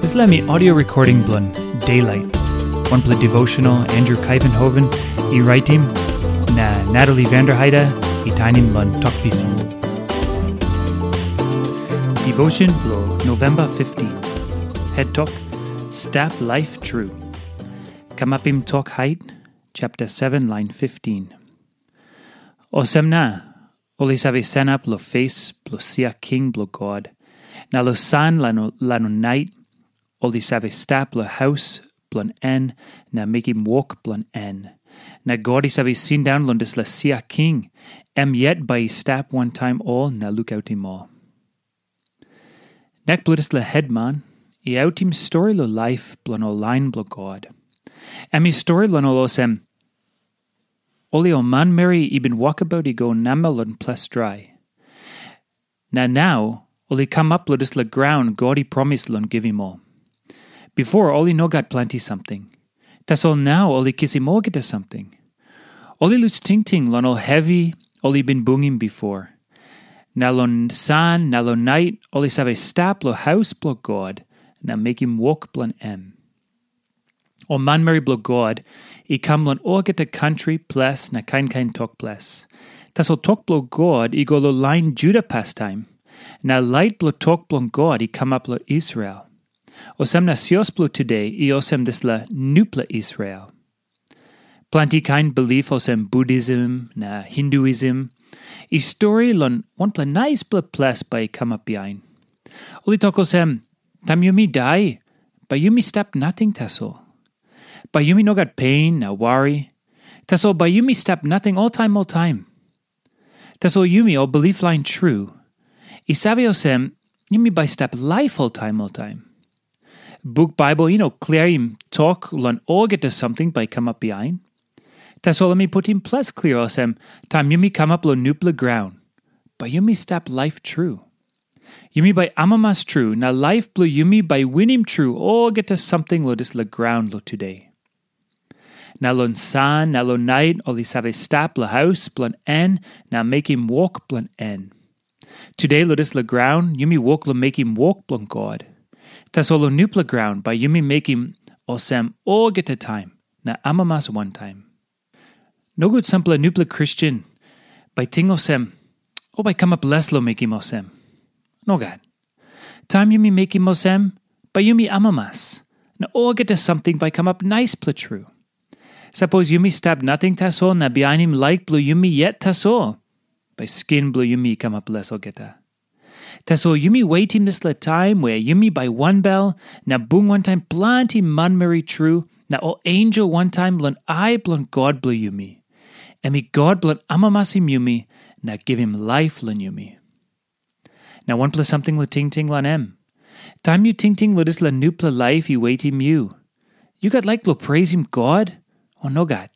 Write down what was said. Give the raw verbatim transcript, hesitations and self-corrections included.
Dispela mi audio recording bilong Daylight. Wanpela devotional Andrew Kaivenhoven i raitim, na Natalie Vanderheide i tainim long Tok Pisin. Devotion bilong November fifteen. Head Tok, Stap Laip Tru. Kamapim Tok Hait, chapter seven, line fifteen. Olsem na, ol i save sanap long fes bilong sia king bilong God, na long san long nait, ol i save stap long haus bilong en na mekim wok bilong en. Na God i save sindaun long dispela sia king, em yet bai i stap wantaim ol na lukautim ol. Nek bilong dispela hetman i autim stori long laip bilong ol lain bilong God. Em i stori long ol olsem, ol i ol manmeri i bin wokabaut i go namel long ples drai. Na nau ol i kamap long dispela graun God i promis long givim ol. Bipo ol i no gat planti samting. Tasol nau ol i kisim olgeta samting. Ol i lus tingting long ol hevi ol i bin bungim bipo. Na long san na long nait ol i save stap long haus bilong God na mekim wok bilong em. Ol manmeri bilong God i kam long olgeta kantri ples na kain kain tok ples. Tasol tok bilong God i go long lain Juda pastaim, na lait bilong tok bilong God i kamap long Israel. Olsem na sios bilong tude i olsem dispela nupela Israel. Planti kain bilip olsem Buddhism na Hinduism i stori long wanpela naispela ples bai i kamap bihain. Ol i tok olsem, taim yumi dai, bai yumi stap nating tasol. Bai yumi no gat pen na wari. Tasol bai yumi stap nating oltaim oltaim. Tasol yumi ol bilip lain tru, i save olsem, yumi bai stap laip oltaim oltaim. Buk Baibel i no kliaim tok long olgeta samting bai i kamap bihain. Tasol em i putim ples klia olsem, taim yumi kamap long nupela graun, bai yumi stap laip tru. Yumi bai amamas tru, na laip bilong yumi bai winim tru olgeta samting long dispela graun long tude. Na long san na long nait ol i save stap long haus bilong en na mekim wok bilong en. Tude long dispela graun yumi wok long mekim wok bilong God. Tasol long nupela graun bai yumi mekim olsem olgeta taim na amamas wantaim. Nogut sampela nupela Kristen bai ting olsem, o bai kamap les long mekim olsem. Nogat. Taim yumi mekim olsem, bai yumi amamas, na olgeta samting bai kamap naispela tru. Sapos yumi stap nating tasol na bihainim laik bilong yumi yet tasol, bai skin bilong yumi i kamap les olgeta. Tasol yumi wetim dispela taim we yumi bai wanbel na bung wantaim planti manmeri tru na ol ensel wantaim long ai bilong God bilong yumi. Em i God bilong amamasim yumi na givim laip long yumi. Na wanpela samting long tingting long em. Taim yu tingting long dispela nupela laip i wetim yu, yu gat laik long preisim God, o nogat?